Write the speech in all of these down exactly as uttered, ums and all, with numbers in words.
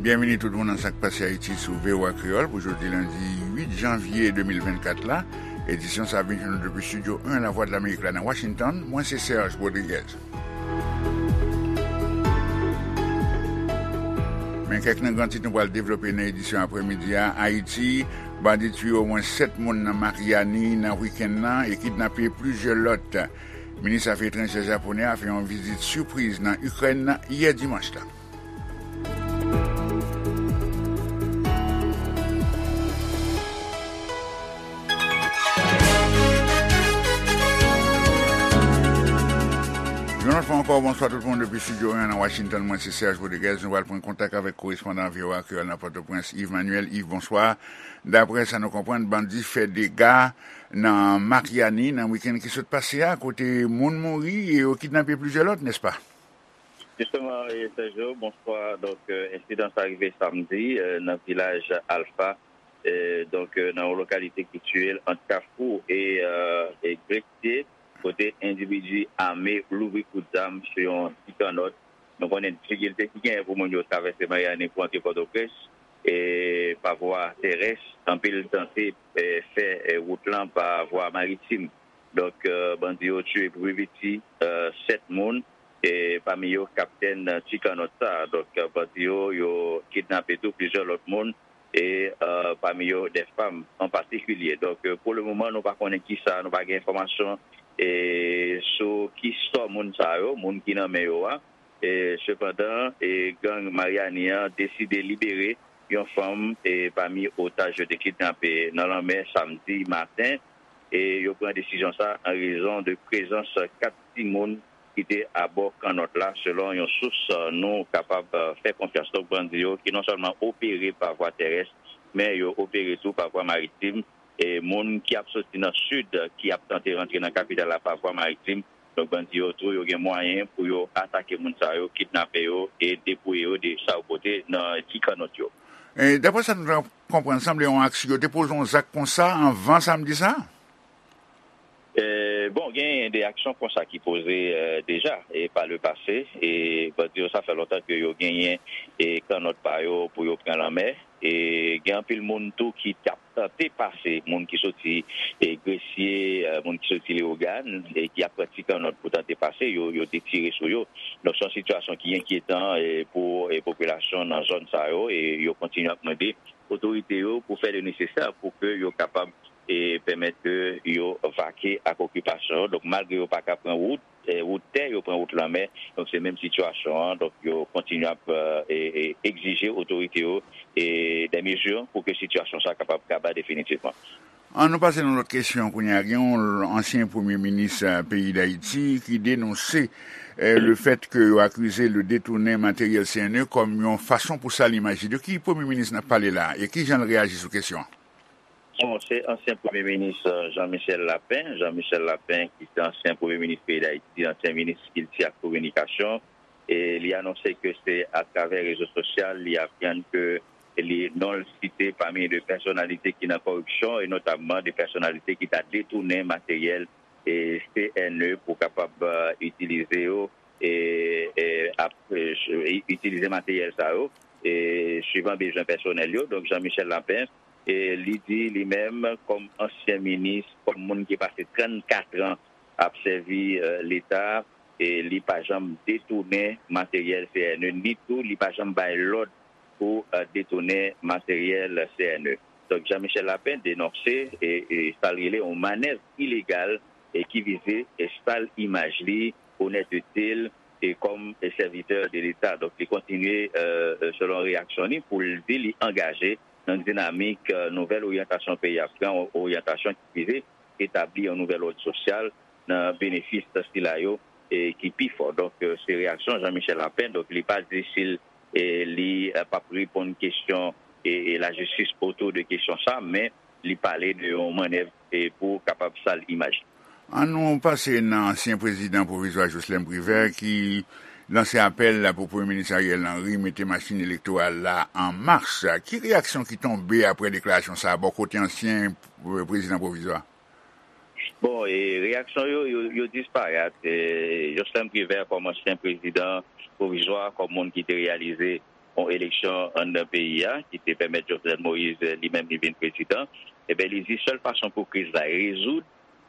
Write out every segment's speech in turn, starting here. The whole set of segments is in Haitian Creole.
Byenvini tout moun nan Sa k Pase Ayiti sou V O A Kreyòl pou jodi lendi uit janvye de mil vennkat la. Edisyon sa ap vin jwenn nou depi Estidyo en Lavwadlamerik la nan Washington. Mwen se Serge Rodriguez. Men kèk nan gran tit nou pral devlope nan edisyon aprèmidi a. Ayiti, bandi tiye omwen sèt moun nan Maryani nan wikenn nan e kidnape plizyè lòt. Minis afè etranjè japonè a fè yon vizit sipriz nan Ikrèn yè dimanch la. Yon lòt fwa ankò, bonswa tout moun depi Estidyo en nan Washington. Mwen se Serge Rodriguez. Nou pral pran kontak avèk korespondan V O A Kreyòl nan Pòtoprens, Yves Manuel. Yves, bonswa. Daprè sa nou konprann, bandi fè dega nan Maryani nan wikenn ki sot pase a, kote moun mouri e yo kidnape plizyè lòt, nèspa? Jisteman, e, Sergio, bonswa. Donk, e, ensidan sa rive samdi, e, nan vilaj Alfa, e, donk, e, nan yon lokalite ki sitiye ant Kafou e, e, e Gresye, kote endividi ame louvri kout zam sou yon ti kannòt. Nou konnen difikilte ki genyen pou moun yo travèse Maryani pou antre Pòtoprens, e, pa vwa terès. Anpil tante, e, fè, e, wout lan pa vwa maritim. Donk, e, bandi yo tiye pou pi piti, e, sèt moun, e pami yo kaptèn ti kannòt sa. Donk, e, bandi yo, yo kidnape tou plizyè lòt moun, e, e, pami yo de fanm an patikilye. Donk, e, pou le moman, nou pa konnen kisa, nou pa gen enfòmasyon, e, sou ki sò moun sa yo, moun ki nan men yo a. E, sepandan, e, gang Maryani an deside libere yon fanm, e, pami otaj yo te kidnape nan lanmè samdi maten. E yo pran desizyon sa an rezon de prezans kat timoun ki te abò kannòt la, selon yon sous, e, nou kapab, e, fè konfyans. Donk, bandi yo ki non sèlman opere pa vwa terès, men yo opere tou pa vwa maritim. E moun ki ap soti nan sid, ki ap tante rantre nan kapital la pa vwa maritim, donk, bandi yo tou, yo gen mwayen pou yo atake moun sa yo, kidnape yo e depouye yo de sa yo pote nan ti kannòt yo. E, daprè sa nou ta konprann, sanble yon aksyon, yo te poze yon zak konsa anvan samdi sa? E, bon, genyen de aksyon konsa ki poze, e, deja, e, pa le pase. E, bandi yo, sa fè lontan ke yo genyen, e, kannòt pa yo pou yo pran lanmè. E gen anpil moun tou ki t ap tante pase, moun ki soti, e, Gresye, e, moun ki soti Leyogàn, e ki ap pran ti kannòt pou tante pase, yo, yo te tire sou yo. Donk, se yon sitiyasyon ki enkyetan, e, pou, e, popilasyon nan zòn sa yo, e yo kontinye ap mande otorite yo pou fè le nesesè pou ke yo kapab, e, pèmèt ke yo vake ak okipasyon yo. Donk, malgre yo pa ka pran wout, e, wout tè, yo pran wout lanmè. Donk, se menm sitiyasyon an. Donk, yo kontinye ap, e, e, egzije otorite yo, e, de mezi pou ke sitiyasyon sa kapab kaba definitivman. An nou pase nan lòt kesyon kounye a. Gen yon ansyen premye minis, e, peyi Dayiti ki denonse, e, le fèt ke yo akize l de detounen materyèl C N E kòm yon fason pou sal imaj li. De ki premye minis n ap pale la a? E ki jan l reyaji sou kesyon an? Bon, se ansyen premye minis, e, Jean Michel Lapin. Jean Michel Lapin, ki se ansyen premye minis peyi Dayiti, ansyen minis kilti ak kominikasyon. E li anonse ke se atravè rezo sosyal li aprann ke li, non l site pami de pèsonalite ki nan koripsyon, e notamman de pèsonalite ki ta detounen materyèl, e, C N E pou kapab, e, itilize yo, e, e, ap, e, itilize materyèl sa yo, e, swivan bezwen pèsonèl yo. Donk, Jean Michel Lapin, e, li di li menm, kòm ansyen minis, kòm moun ki pase trannkat an ap sèvi, e, Leta, e li pa janm detounen materyèl C N E, ni tou li pa janm bay lòd pou, e, detounen materyèl C N E. Donk, Jean Michel Lapin denonse, e, e, sa l rele yon manèv ilegal, e ki vize, e, sal imaj li, onètete l, e kòm, e, sèvitè de Leta. Donk, li kontinye, e, e, selon reyaksyon li, pou l di li angaje nan dinamik, e, nouvèl oryantasyon peyi a pran, oryantasyon ki vize etabli yon nouvèl òd sosyal nan benefis sila yo, e, ki pi fò. Donk, e, se reyaksyon Jean Michel Lapin. Donk, li pa di si l, e, li, e, p ap reponn kesyon, e, e, lajistis otou de kesyon sa, men li pale de yon mannèv, e, pou kapab sal imaj. An nou pase nan ansyen prezidan pwovizwa Jocelerme Privert ki lanse apèl la pou Premye Minis Ariel Henry mete machin elektoral la an mach. Ki reyaksyon ki tonbe apre deklarasyon sa a bò kote ansyen, e, prezidan pwovizwa? Bon, e reyaksyon yo, yo, yo disparèt. E, Jocelerme Privert, kòm ansyen prezidan pwovizwa, kòm moun ki te reyalize, yon eleksyon anndan peyi a, ki te pèmèt Jovenel Moïse, eh, li menm, li vin prezidan. Ebyen, li di sèl fason pou kriz la rezoud,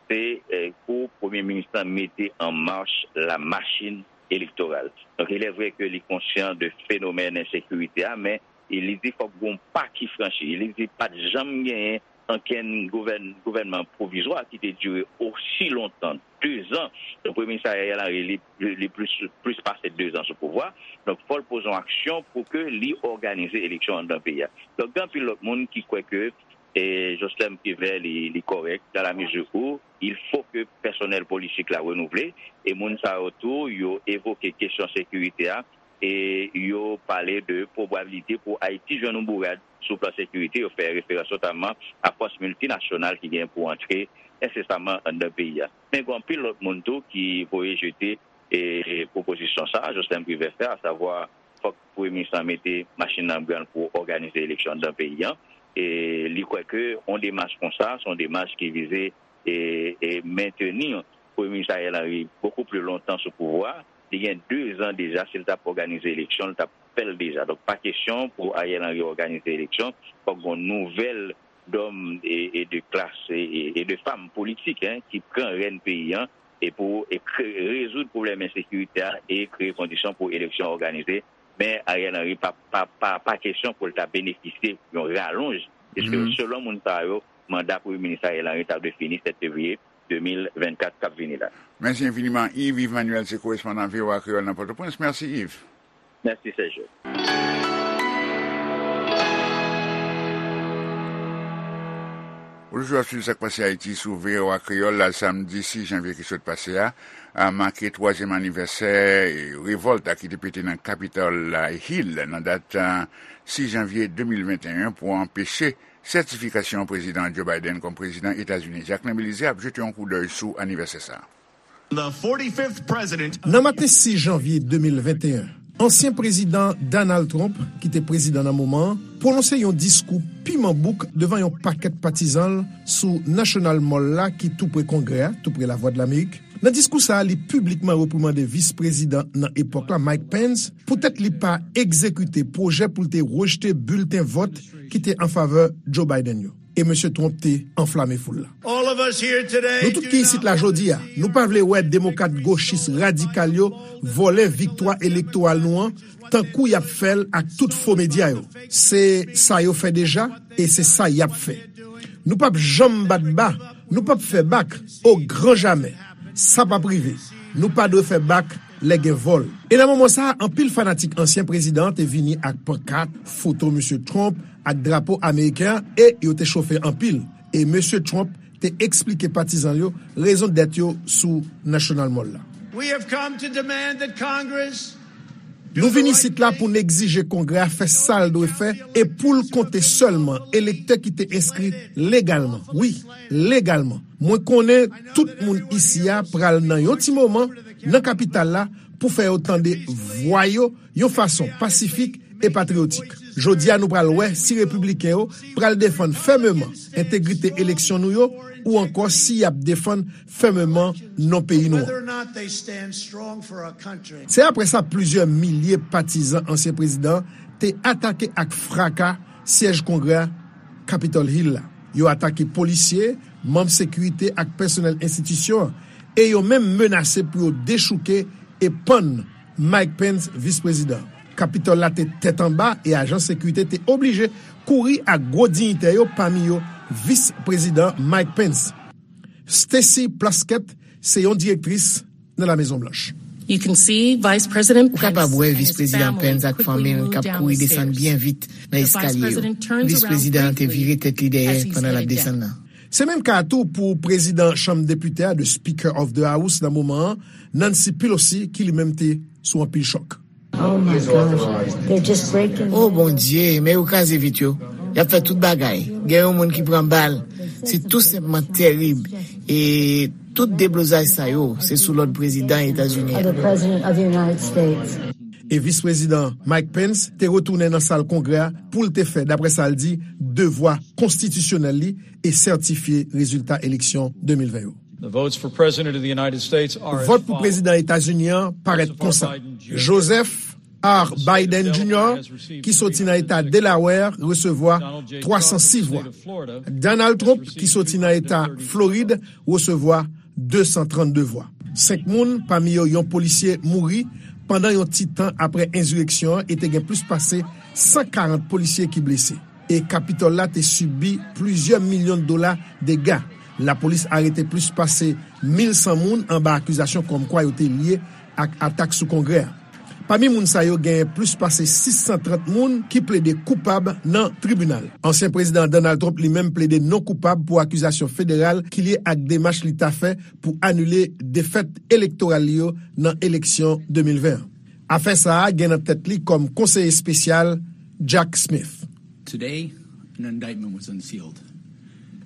se, eh, pou premye minis lan mete an mach la machin elektoral. Donk, il est vrai ke li konsyan de fenomèn ensekirite a, men li di fòk gon pa ki franchi. Li di pa t janm genyen ankenn gouvèn-, gouvènman pwovizwa ki te dire osi lontan, de zan. Donk, premye minis Ariel Henry, li, li, li plis, plis pase de zan sou pouvwa. Donk, fò l poze yon aksyon pou ke li òganize eleksyon anndan peyi a. Donk, gen anpil lòt moun ki kwè ke, e, Joslèn Privè, li, li kòrèk, dans la mesure où il faut que pèsonèl politik la renouvle, e moun sa yo tou, yo evoke kesyon sekirite a, e yo pale de pwobabilite pou Ayiti jwenn yon bourad sou plan sekirite. Yo fè referans notaman a fòs miltinasyonal ki gen pou antre ensesaman anndan peyi a. Men gen anpil lòt moun tou ki voye jete, e, pwopozisyon sa a Joslèn Privè fè, asavwa fòk premye minis lan mete machin nan branl pou òganize eleksyon anndan peyi a. E li kwè ke yon demach konsa, se yon demach ki vize e, e mentni premye minis Ariel Henry bokou pli lontan sou pouvwa. Li gen de zan deja, si l t ap òganize eleksyon, l t ap fè l deja. Donk, pa kesyon pou Ariel Henry òganize eleksyon, fòk gen yon nouvèl dòm e, e de klas e, e, e de fam politik, en, ki pran rèn peyi a, e pou e kre-, rezoud pwoblèm ensekirite a e kreye kondisyon pou eleksyon òganize. Men Ariel Henry pa, pa, pa, pa kesyon pou l ta benefisye yon ralonj, piske selon moun sa yo, manda premye minis Ariel Henry ta dwe fini sèt fevriye de mil vennkat k ap vini la. Mèsi enfiniman, Yves. Yves Manuel se korespondan V O A Kreyòl nan Pòtoprens. Mèsi, Yves. Mèsi, Serge. Ou toujou ap swiv Sa k Pase Ayiti sou V O A Kreyòl la. Samdi sis janvye ki sot pase a, a make twazyèm anivèsè revòlt la ki te pete nan Capitol Hill nan dat, a, sis janvye de mil venteyen pou anpeche sètifikasyon Prezidan Joe Biden kòm prezidan Etazini. Jacquelin Belizaire ap jete yon koudèy sou anivèsè sa a. The forty-fifth president. Nan maten sis janvye de mil venteyen, ansyen prezidan Donald Trump, ki te prezidan nan moman an, pwononse yon diskou piman bouk devan yon pakèt patizan l sou National Mall la, ki tou pre Kongrè a, tou pre Lavwadlamerik. Nan diskou sa a, li piblikman reprimande vis prezidan nan epòk la, Mike Pence, poutèt li pa egzekite pwojè pou l te rejte bilten vòt ki te an favè Joe Biden yo. E mesye Trump te anflame foul la. Nou tout ki isit la jodi a, nou pa vle wè demokrat gochis radikal yo vòlè viktwa elektoral nou an, tankou y ap fè l ak tout fo medya yo. Se sa yo fè deja, e se sa y ap fè. Nou p ap janm bat ba, nou p ap fè bak, o gran jamè. Sa p ap rive. Nou pa dwe fè bak lè gen vòl. E nan moman sa a, anpil fanatik ansyen prezidan an te vini ak pankat, foto mesye Trump ak drapo ameriken an, e yo te chofe anpil. E mesye Trump te eksplike patizan l yo rezon dèt yo sou National Mall la. We have come to demand that Congress Nou vin isit la pou n egzije Kongrè a fè sa l dwe fè e pou l konte sèlman elektè ki te enskri legalman. Wi, legalman. Mwen konnen tout moun isi a pral nan yon ti moman nan kapital la pou fè yo tande vwa yo yon fason pasifik e patriyotik. Jodi a, nou pral wè si repibliken yo pral defann fèmeman entegrite eleksyon nou yo ou ankò si y ap defann fèmeman non peyi nou an. Se apre sa, plizyè milye patizan ansyen prezidan an te atake ak fraka syèj Kongrè a, Capitol Hill la. Yo atake polisye, manm sekirite ak pèsonèl enstitisyon an, e yo menm menase pou yo dechouke e pann Mike Pence, vis prezidan. Kapitòl la te tèt anba e ajan sekirite te oblije kouri ak gwo diyitè yo, pami yo vis prezidan Mike Pence. Stacey Plaskett se yon direktris nan La Mezon Blanch. Ou kapab wè vis prezidan Pence ak fanmi l k ap kouri desann byen vit nan eskalye yo. Vis prezidan an te vire tèt li dèyè pandan l ap desann nan. Se menm ka a tou pou prezidan Chanm Depite a, the Speaker of the House nan moman an, Nancy Pelosi, ki li menm te sou anpil chòk. O Bondye, men yo kraze vit yo. Y ap fè tout bagay. Gen yon moun ki pran bal. Se tou senpman terib. E tout deblozay sa yo, se sou lòd prezidan Etazini an. E vis prezidan Mike Pence te retounen nan sal Kongrè a pou l te fè, daprè sa l di, devwa konstitisyonèl li e sètifye rezilta eleksyon de mil ven yo. Vòt pou prezidan Etazini an parèt konsa: Joseph R. Biden Junior, ki soti nan eta Delaware, resevwa twa san sis vwa. Donald Trump, ki soti nan eta Florid, resevwa de san trannde vwa. Senk moun, pami yo yon polisye, mouri pandan yon ti tan apre ensireksyon an e te gen plis pase san karant polisye ki blese. E Kapitòl la te sibi plizyè milyon dola dega. Lapolis arete plis pase mil san moun anba akizasyon kòmkwa yo te lye ak atak sou Kongrè a. Pami moun sa yo, genyen plis pase sis san trant moun ki plede koupab nan tribinal. Ansyen Prezidan Donald Trump li menm plede non koupab pou akizasyon federal ki lye ak demach li ta fè pou anile defèt elektoral li yo nan eleksyon de mil ven an. Afè sa a gen nan tèt li kòm konseye espesyal Jack Smith. Today, an indictment was unsealed.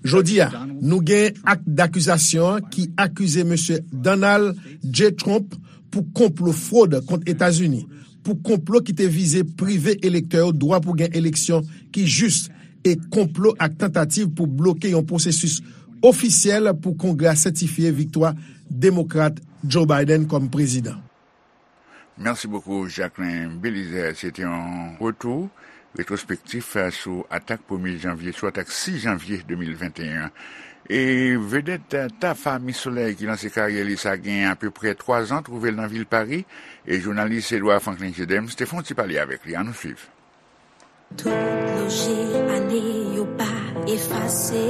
Jodi a, nou gen ak dakizasyon ki akize Mesye Donald J. Trump pou konplo fwod kont Etazini, pou konplo ki te vize prive elektè yo dwa pou gen eleksyon ki jis, e konplo ak tantativ pou bloke yon pwosesis ofisyèl pou Kongrè a sètifye viktwa Demokrat Joe Biden kòm prezidan. Mèsi bokou, Jacquelin Belizaire. Se te yon retou retwospektif sou atak premye janvye, sou atak sis janvye de mil venteyen an. E vedèt Tafa Miss Soleil ki lanse karyè li sa gen apeprè twa zan, twouve l nan vil Pari, e jounalis Edouard Franklin Gedems te fè yon ti pale avèk li. Ann nou swiv. Tout lonje ane yo pa efase.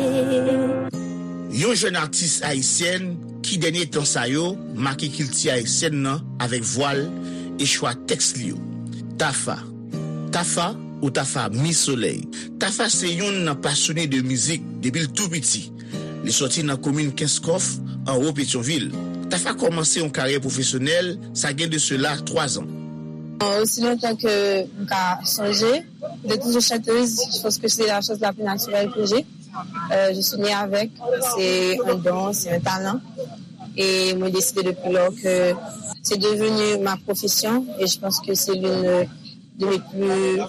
Yon jèn atis ayisyèn ki dènye tan sa yo make kilti ayisyèn nan avèk vwa l e chwa tèks li yo. Tafa. Tafa ou Tafa Miss Soleil. Tafa se yonn nan pasyone de mizik depi l tou piti. Li sòti nan komin Kenskòf, anwo Petyonvil. Tafa kòmanse yon karyè pwofesyonèl, sa gen de sela twa zan. Aussi longtemps que je songe, j'ai toujours chanteuse. Je pense que c'est la chose la plus naturelle que j'ai. Euh, je suis née avec, c'est un don, c'est un talent. Et moi, j'ai décidé depuis lors que c'est devenu ma profession. Et je pense que c'est l'une de mes plus,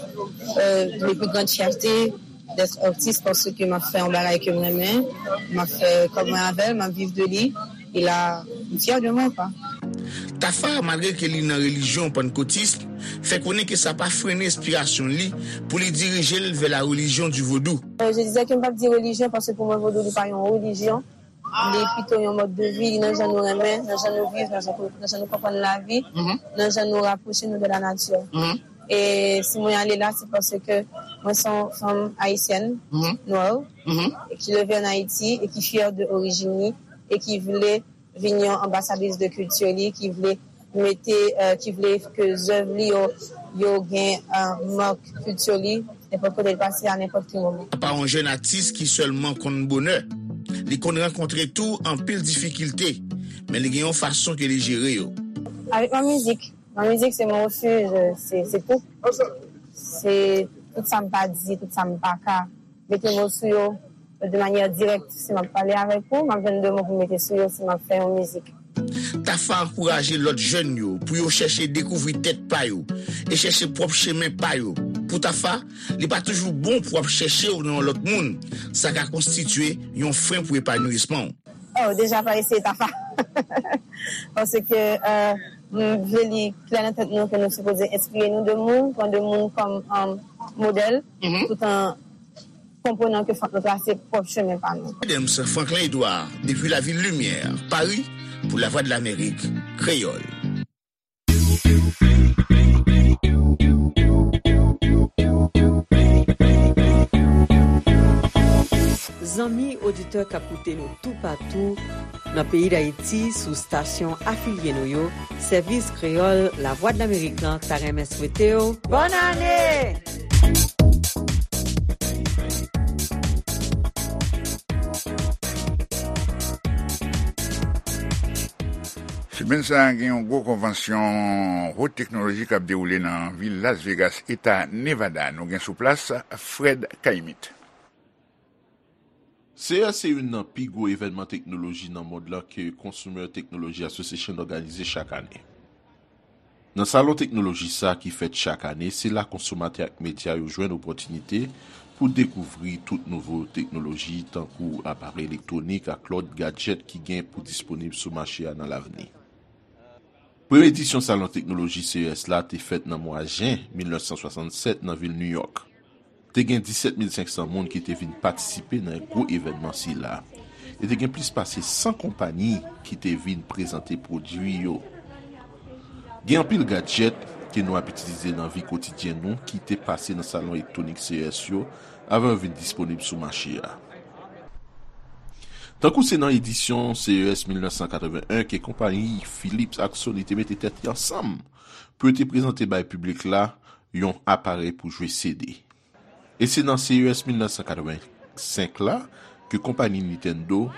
euh, de mes plus grandes fiertés d'être artiste parce que m'a fait un bagage que moi-même, m'a fait comme un avec, m'a vivre de lui. E la, m fyè de mwen, kwa. Tafa, malgre ke li nan relijyon pannkotis, fè konnen ke sa pa frennen enspirasyon li pou li dirije l vè la religion du vodou. Je disais que m p ap di religion parce que pour moi vodou li pa yon religion, li pito yon mode de vie, li nan jan nou renmen, nan jan nou viv, nan jan nou konprann lavi, nan jan nou rapwoche nou de la nature. E si mwen ale la se paske mwen se yon fanm ayisyèn, nwè, ki leve an Ayiti e ki fyè de orijin li e ki vle vin yon anbasadris de kilti li, ki vle mete, ki vle ke zèv li yo, yo gen mak kilti li nenpòt kote l pase a nenpòt ki moman. Apa yon jèn atis ki sèlman konn bonè, li konn rankontre tou anpil difikilte, men li gen yon fason ke li jere yo. Avèk mwen mizik, Mwen mizik se mon refuj, se se tout. Se tout sa m pa di, tout sa m pa ka mete mo sou yo de manyè dirèk. Si m ap pale avèk ou, m ap jwenn de mo pou m mete sou yo si m ap fè yon mizik. Tafa ankouraje lòt jèn yo pou yo chèche dekouvri tèt pa yo e chèche pwòp chemen pa yo. Pou Tafa, li pa toujou bon pou w ap chèche w nan yon lòt moun. Sa ka konstitye yon fren pou epanouisman w. Oh, deja pa eseye Tafa. Paske euh, m vle li klè nan tèt nou ke nou sipoze enspire nou de moun, pran de moun kòm um, modèl, tout an konprenan ke fòk nou trase pwòp chemen pa nou. Adams Franklin Edouard, depi lavil Limyè, Pari, pou Lavwadlamerik Kreyòl. Zanmi oditè k ap koute nou toupatou nan peyi Dayiti sou stasyon afilye nou yo, Sèvis Kreyòl Lavwadlamerik lan ta renmen swete w bòn ane! Simenn sa a, gen yon gwo konvansyon wot teknoloji k ap dewoule nan vil Las Vegas, eta Nevada. Nou gen sou plas Fred Caillemette. Seyè se youn nan pi gwo evènman teknoloji nan mond lan ke Consumer Technology Association òganize chak ane. Nan salon teknoloji sa a ki fèt chak ane, se la konsomatè ak medya yo jwenn opòtinite pou dekouvri tout nouvo teknoloji, tankou aparèy elektwonik ak lòt gadjèt ki gen pou disponib sou mache a nan lavni. Premye edisyon Salon Teknoloji C E S la te fèt nan mwa jen mil nèf san swasannsèt nan vil New York. Te gen disèt mil senk san moun ki te vin patisipe nan gwo evènman sila. E te gen plis pase san konpayi ki te vin prezante pwodui yo. Gen anpil gadjèt ke nou ap itilize nan vi kotidyen nou ki te pase nan salon elektwonik C E S yo avan yo vin disponib sou mache a. Tankou se nan edisyon C E S mil nèf san katreven en ke konpayi Philips ak Sony te mete tèt yo ansanm pou yo te prezante bay piblik la yon aparèy pou jwe C D. E se nan C E S mil nèf san katreven senk la ke konpayi Nintendo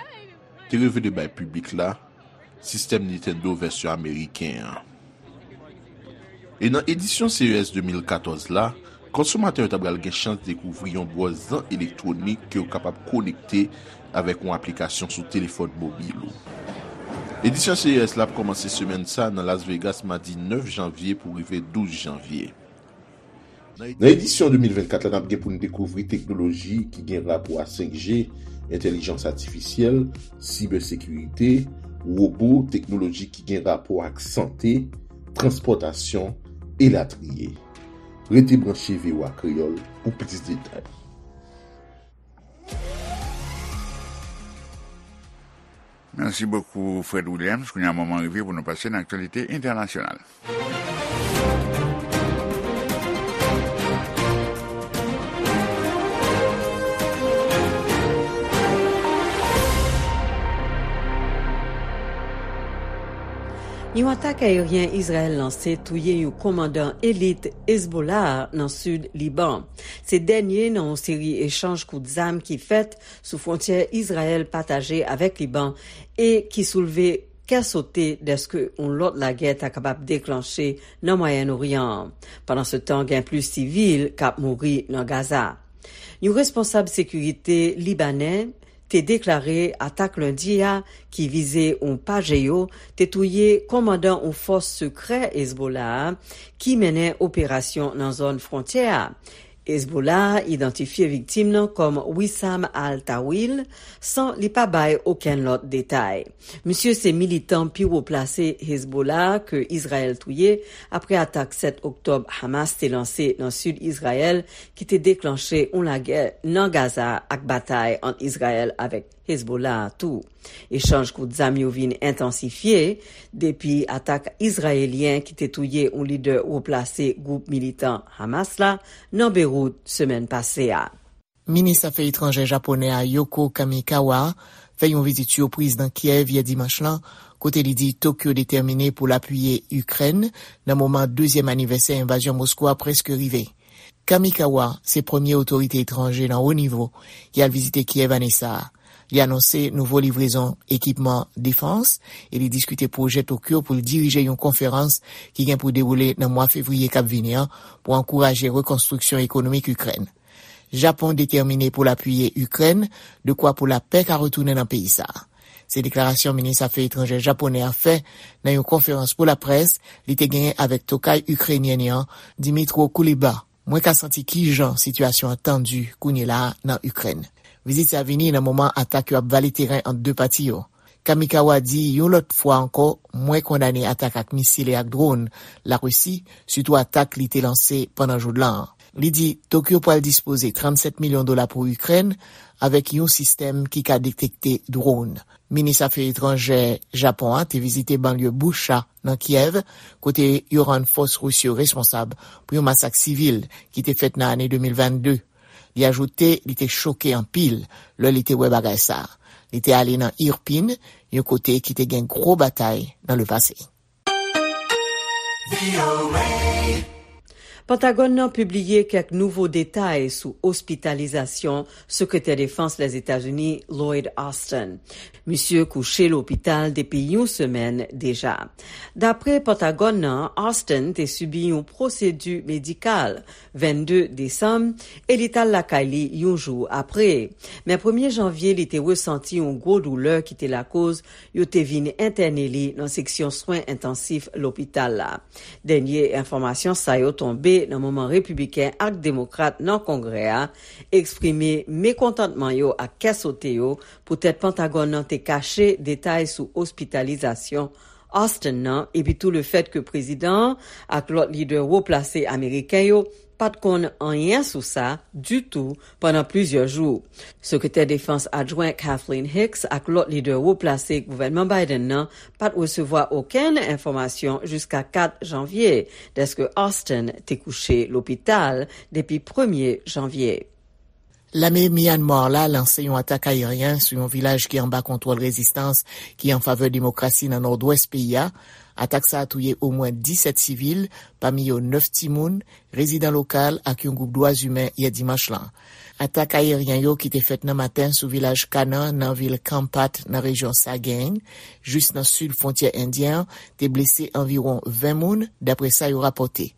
te revele bay piblik la sistèm Nintendo vèsyon ameriken an. E nan edisyon C E S de mil katòz la, konsomatè yo ta pral gen chans dekouvri yon bwòz zan elektwonik ke w kapab konekte avèk yon aplikasyon sou telefòn mobil ou. Edisyon C E S la ap kòmanse semèn sa nan Las Vegas madi nèf janvye pou rive douz janvye. Nan edisyon de mil vennkat la, n ap gen pou n dekouvri teknoloji ki gen rapò a senk G, entèlijans atifisyèl, sibèsekirite, wobo, teknoloji ki gen rapò ak sante, transpòtasyon, elatriye. Rete branche V O A Kreyòl pou plis detay. Mèsi bokou, Fred Williams. Kounye a, moman rive pou nou pase nan aktyalite entènasyonal. Yon atak ayeryen Izrayèl lanse touye yon kòmandan elit Hezbollah nan sid Liban. Se dènye nan yon seri echanj kout zam ki fèt sou fwontyè Izrayèl pataje avèk Liban e ki soulve kè sote dèske yon lòt lagè ta kapab deklanche nan Mwayèn Oryan an. Pandansetan, gen plis sivil k ap mouri nan Gaza. Yon responsab sekirite libanè te deklare atak lendi a ki vize yon pajeyo te touye kòmandan yon fòs sekrè Hezbollah a ki mennen operasyon nan zòn fwontyè a. Hezbollah idantifye viktim nan kòm Wissam al-Tawil, san li pa bay okenn lòt detay. Misye se militan pi wo plase Hezbollah ke Izrayèl touye apre atak sèt oktòb Hamas te lanse nan sid Izrayèl, ki te deklanche yon lagè nan Gaza ak batay ant Izrayèl avèk Hezbollah tou. Echanj kout zam yo vin entansifye depi atak izrayelyen ki te touye yon lidè wo plase gwoup militan Hamas la nan Beywout semèn pase a. Minis afè etranjè japonè a Yoko Kamikawa fè yon vizit sipriz nan Kyèv yè dimanch lan, kote li di Tokyo detèmine pou l apiye Ikrèn nan moman dezyèm anivèsè envazyon Moskou a prèske rive. Kamikawa se premye otorite etranje nan wo nivo ki al vizite Kyèv ane sa a. Li anonse nouvo livrezon ekipman defans e li diskite pwojè Tokyo pou l dirije yon konferans ki gen pou dewoule nan mwa fevriye k ap vini an pou ankouraje rekonstriksyon ekonomik Ikrèn. Japon detèmine pou l apiye Ikrèn, dekwa pou lapè ka retounen nan peyi sa a. Se deklarasyon minis afè etranjè japonè a fè nan yon konferans pou laprès li te genyen avèk tokay ikrenyèn li an, Dmytro Kuleba. Mwen ka santi kijan sitiyasyon an tandi kounye la a nan Ikrèn. Vizit sa vini nan moman atak yo ap vale teren ant de pati yo. Kamikawa di yon lòt fwa ankò, mwen kondane atak ak misil e ak dwòn Larisi, sitou atak li te lanse pandan joudlan an. Li di Tokyo pral dispoze trannsèt milyon dola pou Ikrèn avèk yon sistèm ki ka detekte dwòn. Minis afè etranjè Japon an te vizite banlye Bucha nan Kyèv, kote yo rann fòs ris yo responsab pou yon masak sivil ki te fèt nan ane de mil vennde. Li ajoute li te choke anpil lè li te wè bagay sa a. Li te ale nan Irpin, yon kote ki te gen gwo batay nan lepase. Pentagòn nan pibliye kèk nouvo detay sou ospitalizasyon Sekretè Defans Lèzetazini Lloyd Austin. Misye kouche lopital depi yon semèn deja. Dapre Pentagòn nan, Austin te sibi yon pwosedi medikal vennde desanm e li t al lakay li yon jou apre. Men premye janvye, li te resanti yon gwo doulè ki te lakoz yo te vin entène li nan seksyon swen entansif lopital la. Dènye enfòmasyon sa yo tonbe nan moman repibliken ak demokrat nan Kongrè a eksprime mekontantman yo ak kè sote yo poutèt Pentagòn nan te kache detay sou ospitalizasyon Austin nan, epi tou lefèt ke prezidan an ak lòt lidè wo plase ameriken yo pa t konn anyen sou sa ditou pandan plizyè jou. Sekretè Defans Adjwen Kathleen Hicks ak lòt lidè wo plase gouvènman Biden nan pa t resevwa okenn enfòmasyon jiska kat janvye, dèske Austin te kouche lopital depi premye janvye. Lame Myanmar la lanse yon atak ayeryen sou yon vilaj ki anba kontwòl rezistans ki an favè demokrasi nan nòdwès peyi a. Atak sa a touye omwen disèt sivil, pami yo nèf timoun, rezidan lokal ak yon gwoup dwa imen yè dimanch lan. Atak ayeryen yo ki te fèt nan maten sou vilaj Kanan nan vil Kampat nan rejyon Sagaing, jis nan sid fwontyè endyen an, te blese anviwon ven moun, dapre sa yo rapòte.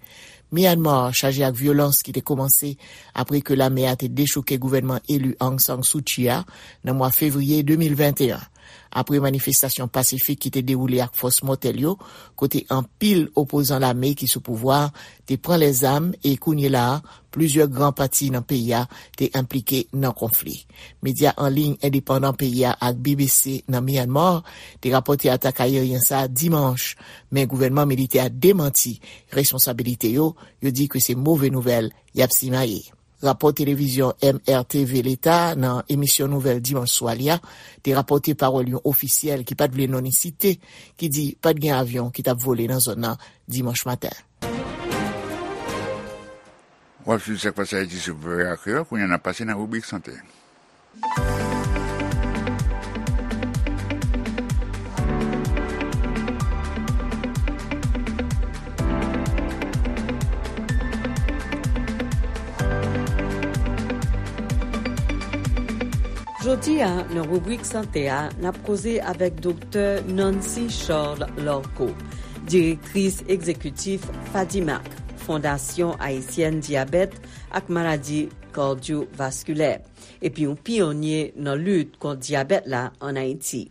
Myanmar chaje ak vyolans ki te kòmanse apre ke lame a te dechouke gouvènman eli Aung San Suu Kyi a nan mwa fevriye de mil venteyen. Apre manifestasyon pasifik ki te dewoule ak fòs mòtèl yo, kote anpil opozan lame ki sou pouvwa a te pran lèzam e kounye la a, plizyè gran pati nan peyi a te enplike nan konfli. Medya an liy endepandan peyi a ak B B C nan Myanmar te rapòte atak ayeryen sa a dimanch, men gouvènman militè a demanti responsabilite yo, yo di ke se move nouvèl y ap simaye. Rapò televizyon M R T V Leta nan emisyon nouvèl dimanch swa li a te rapòte pawòl yon ofisyèl ki pa t vle non li site, ki di pa t gen avyon ki t ap vole nan zòn nan dimanch maten. W ap swiv Sa k Pase Ayiti sou V O A Kreyòl, kounye a n ap pase nan ribrik sante. Jodi a, nan ribrik sante a, n ap koze avèk Doktè Nancy Charles Larco, direktris egzekitif FADIMAC, Fondasyon Ayisyèn Dyabèt ak Maladi Kardyovaskilè, epi yon pyonye nan lit kont dyabèt la ann Ayiti.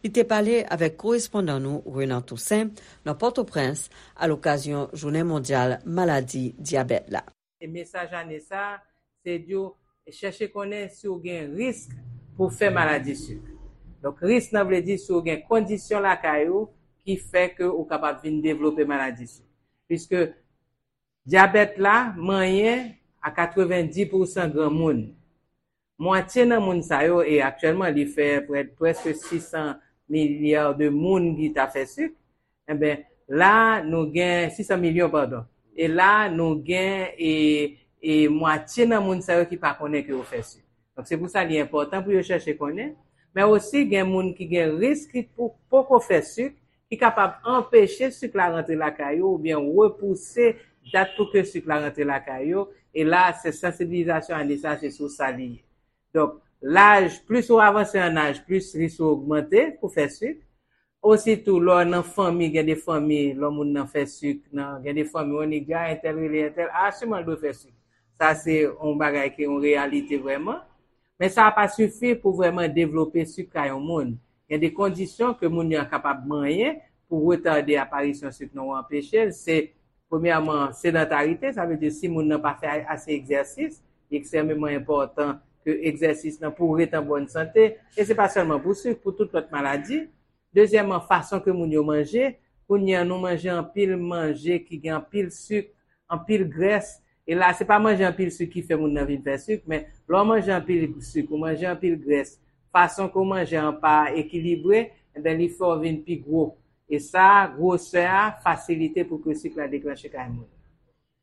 Li te pale avèk korespondan nou, Renan Toussaint, nan Pòtoprens, alokazyon Jounen Mondyal Maladi Dyabèt la. E mesaj ane sa a, se di w chèche konnen si w gen risk pou w fè maladi sik. Donk, risk nan vle di si w gen kondisyon lakay ou ki fè ke ou kapab vin devlope maladi sik. Piske dyabèt la manyen a katrevenndis pousan granmoun. Mwatye nan moun sa yo, e aktyèlman li fè prè, prèske sis san milya de moun ki ta fè sik, enben, la nou gen, sis san milyon, padon. E la nou gen, e, e mwatye nan moun sa yo ki pa konnen ke yo fè sik. Donk, se pou sa li enpòtan pou yo chèche konnen. Men osi, gen moun ki gen risk ki pou, poko fè sik, ki kapab anpeche sik la rantre lakay yo oubyen repouse dat pou ke sik la rantre lakay yo. E la, se sansibilizasyon ane sa, se sou sa li ye. Donk, laj, plis ou avanse an aj, plis risk ou ogmante pou fè sik. Ositou, lè w nan fanmi, gen de fanmi, lè moun nan fè sik, nan, gen de fanmi, w annik di, a, entèl rele entèl, a, siman l dwe fè sik. Sa se yon bagay ki yon reyalite vrèman. Men sa pa sifi pou vrèman devlope sik kay yon moun. Gen de kondisyon ke moun yo kapab manyen pou retade aparisyon sik nan ou anpeche l. Se, premyèman, sedantarite, sa vle di si moun nan pa fè ase egzèsis, li ekstrèmeman enpòtan ke egzèsis nan pou ret an bòn sante. E se pa sèlman pou sik, pou tout lòt maladi. Dezyèmman, fason ke moun yo manje. Kounye a, nou manje anpil manje ki gen anpil sik, anpil grès. E la, se pa manje anpil sik ki fè moun nan vin fè sik, men lè w manje anpil sik, ou manje anpil grès, fason ke w manje an pa ekilibre, enben, li fè w vin pi gwo. E sa, gwosè a fasilite pou ke sik la deklanche kay moun.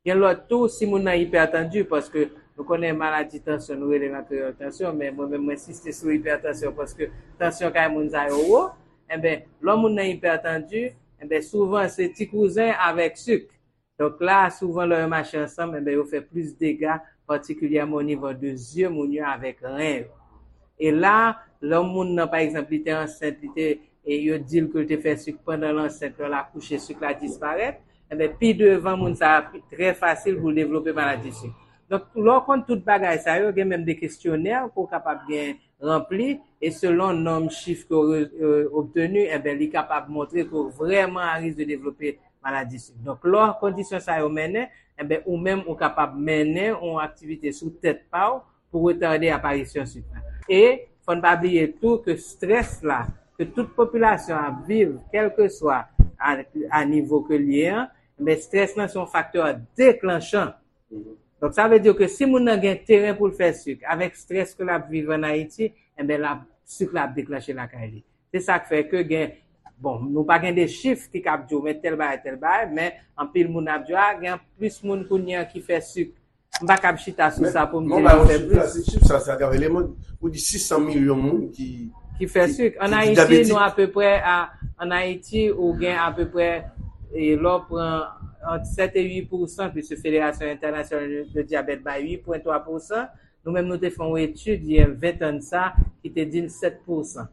Gen lòt tou, si moun nan ipètandi, paske nou konnen maladi tansyon, nou rele l an kreyòl tansyon, men mwen menm, mwen ensiste sou ipètansyon, paske tansyon kay moun sa yo wo, enben, lè moun nan ipètandi, enben, souvan se ti kouzen avèk sik. Donk la, souvan, lè yo mache ansanm, enben, yo fè plis dega, patikilyèman o nivo de zye moun yo avèk ren yo. E la, lè moun nan, pa egzanp, li te ansent, li te, e yo di l ke l te fè sik pandan l ansent, lè l akouche, sik la disparèt, enben, pi devan, moun sa a, pi, trè fasil pou l devlope maladi sik. Donk, lè w konn tout bagay sa yo, gen menm de kesyonè ke w kapab gen ranpli, e selon nonm chif ke w re-, e, obteni, enben, li kapab montre ke w vrèman a risk de devlope maladi sik. Donk, lè kondisyon sa yo mennen, enben, ou menm, ou kapab mennen yon aktivite sou tèt pa w pou retade aparisyon sik la. E fò n pa bliye tou ke strès la, ke tout popilasyon ap viv, kèlkeswa a, a nivo ke l ye an, men strès lan se yon faktè deklanchan. Donk, sa vle di ke si moun nan gen teren pou l fè sik, avèk strès ke l ap viv ann Ayiti, enben, l ap, sik la ap deklanche lakay li. Se sa k fè ke gen, bon, nou pa gen de chif ki kab di w, men tèl bagay, tèl bagay, men anpil moun ap di w, a, gen plis moun kounye a ki fè sik. M pa kab chita sou sa pou m di yo fè plis. Se chif sa, se atrav eleman, ou di sis san milyon moun ki, ki fè sik. Ann Ayiti, nou apeprè a, ann Ayiti, ou gen apeprè, e, lè w pran ant sèt e uit pousan, piske Federasyon Entènasyonal de Dyabèt bay uit pwen twa pousan, nou menm nou te fè yon etid, gen ven tan de sa, ki te di n sèt pousan.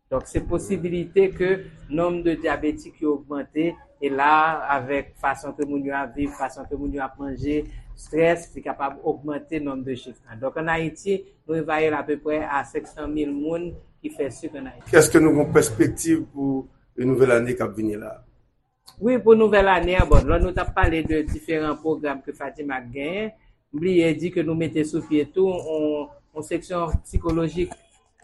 Donk, se posibilite ke nonb de dyabetik yo ogmante, e la, avèk fason ke moun yo ap viv, fason ke moun yo ap manje, strès, li kapab ogmante nonb de chif lan. Donk, ann Ayiti, nou evalye l apeprè a senk san mil moun ki fè sik ann Ayiti. Èske nou gen yon pèspektiv pou yon nouvèl ane k ap vini la? Wi, pou nouvèl ane an, bon, lè nou t ap pale de diferan pwogram ke Fadimak genyen, m bliye di ke nou mete sou pye tou yon, yon seksyon psikolojik,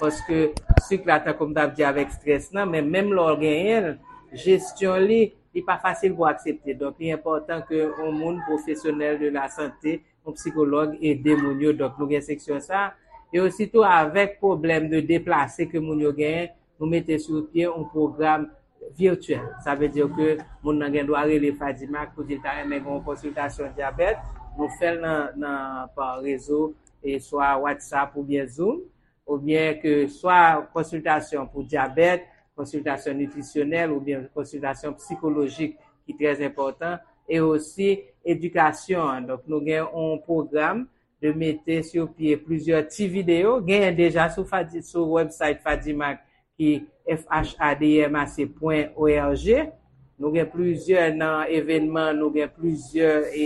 paske sik la, tankou m t ap di, avèk strès lan, men menm lè w genyen l, jesyon li, li pa fasil pou aksepte. Donk, li enpòtan ke yon moun pwofesyonèl de lasante, yon psikològ ede moun yo. Donk, nou gen seksyon sa. E ositou avèk pwoblèm de deplase ke moun yo genyen, nou mete sou pye yon pwogram vityèl. Sa vle di ke moun nan gen dwa rele Fadimak pou di l ta renmen gen yon konsiltasyon dyabèt. Nou fè l nan, nan, pa rezo, e swa WhatsApp oubyen Zoom, oubyen ke swa konsiltasyon pou dyabèt, konsiltasyon nitrisyonèl oubyen konsiltasyon psikolojik ki trè enpòtan, e osi edikasyon an. Donk, nou gen yon pwogram de mete sou pye plizyè ti videyo. Genyen deja sou Fadi-, sou website Fadimak ki F H A D M A C pwen O R G. Nou gen plizyè nan evènman, nou gen plizyè, e,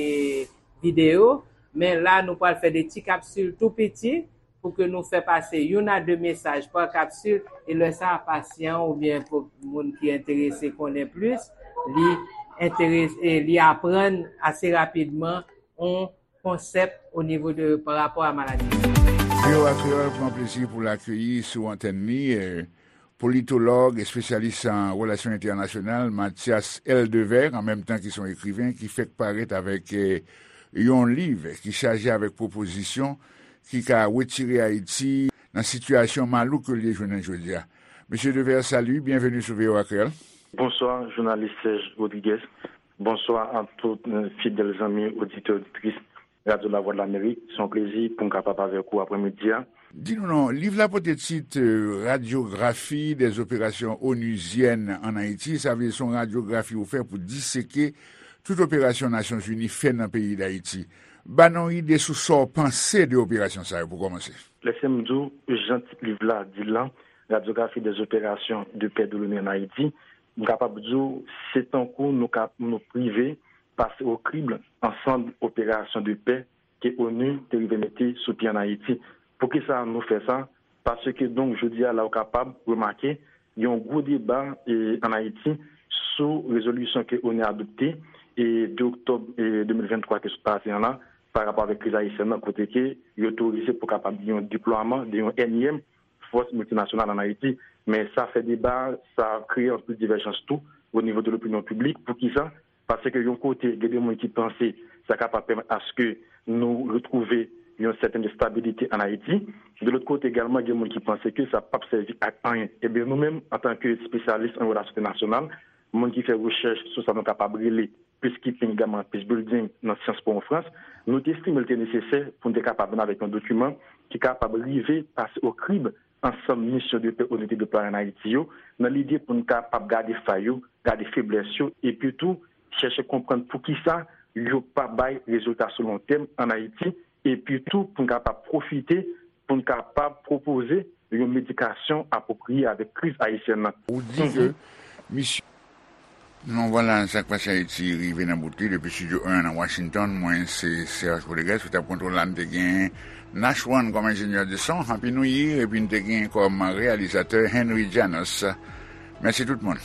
videyo. Men la, nou pral fè de ti kapsil tou piti pou ke nou fè pase youn a de mesaj pa kapsil, e lè sa a, pasyan oubyen pou moun ki enterese konnen plis, li enterese, e li aprann ase rapidman yon konsèp o nivo de, pa rapò a maladi. V O A Kreyòl pran plezi pou l akeyi sou antèn li, eh, politològ, espesyalis an relasyon entènasyonal, Mathias L. Devers, an menm tan ki se yon ekriven, ki fèk parèt avèk, eh, yon liv ki chaje avèk pwopozisyon ki ka retire Ayiti nan sitiyasyon malouk ke l ye jounen jodi a. Mesye Devers, salut, byenveni sou V O A Kreyòl. Bonswa, jounalis Serge Rodriguez. Bonswa a tout, eh, fidèl zanmi oditè, oditris Radyo Lavwadlamerik. Se yon plezi pou m kapab avèk ou aprèmidi a. Di nou non, liv la pote tit, eh, Radyografi dè zoperasyons onuzyèn ann Ayiti. Sa vle di se yon radyografi ou fè pou diseke tout operasyon Nasyonzini fè nan peyi Dayiti. Ba nou yon ide sou sa w panse de operasyon sa yo pou kòmanse. Lèse m di w jan tit liv la di l lan, Radyografi dè zoperasyons de pè de l'ONU ann Ayiti. M kapab di w, se tankou nou ka, nou prive pase o krible ansanm operasyon de pè ke onu te rive mete sou pye ann Ayiti. Poukisa nou fè sa? Paske, donk, jodi a la, ou kapab remake, gen yon gwo deba, e, ann Ayiti sou rezolisyon ke onu adopte, e, de oktòb, e, de mil venntwa ke sot pase an la, pa rapò avèk kriz ayisyèn nan, kote ke yo otorize pou kapab gen yon deplwaman de yon ènyèm fòs miltinasyonal ann Ayiti. Men sa fè deba, sa kreye anpil divèjans tou o nivo de lopinyon piblik. Poukisa? Paske yon kote, gen de moun ki panse sa kapab pèmèt aske nou retwouve yon sètèn estabilite ann Ayiti. De lòt kote egalman, gen moun ki panse ke sa p ap sèvi ak anyen. Ebyen, nou menm, antanke espesyalis an relasyon entènasyonal, moun ki fè rechèch sou sa nou kapab rele peacekeeping, egalman peace building nan syans pou an Frans, nou te estime l te nesesè pou n te kapab vin avèk yon dokiman ki kapab rive pase o krib ansanm misyon de pè onu te deplwaye ann Ayiti yo, nan lide pou n kapab gade fay yo, gade feblès yo, epi tou chèche konprann poukisa yo pa bay rezilta sou lontèm ann Ayiti, epi tou pou n kapab pwofite, pou n kapab pwopoze yon medikasyon apwopriye avèk kriz ayisyèn nan. Ou di ke misyon. Non, vwala, Sa k Pase Ayiti rive nan bout li depi Estidyo en nan Washington. Mwen, se Serge Rodriguez ki t ap kontwole la. M te gen Nash One kòm enjenyè de son, Happy New Year, epi m te gen kòm reyalizatè Henry Janos. Mèsi tout moun.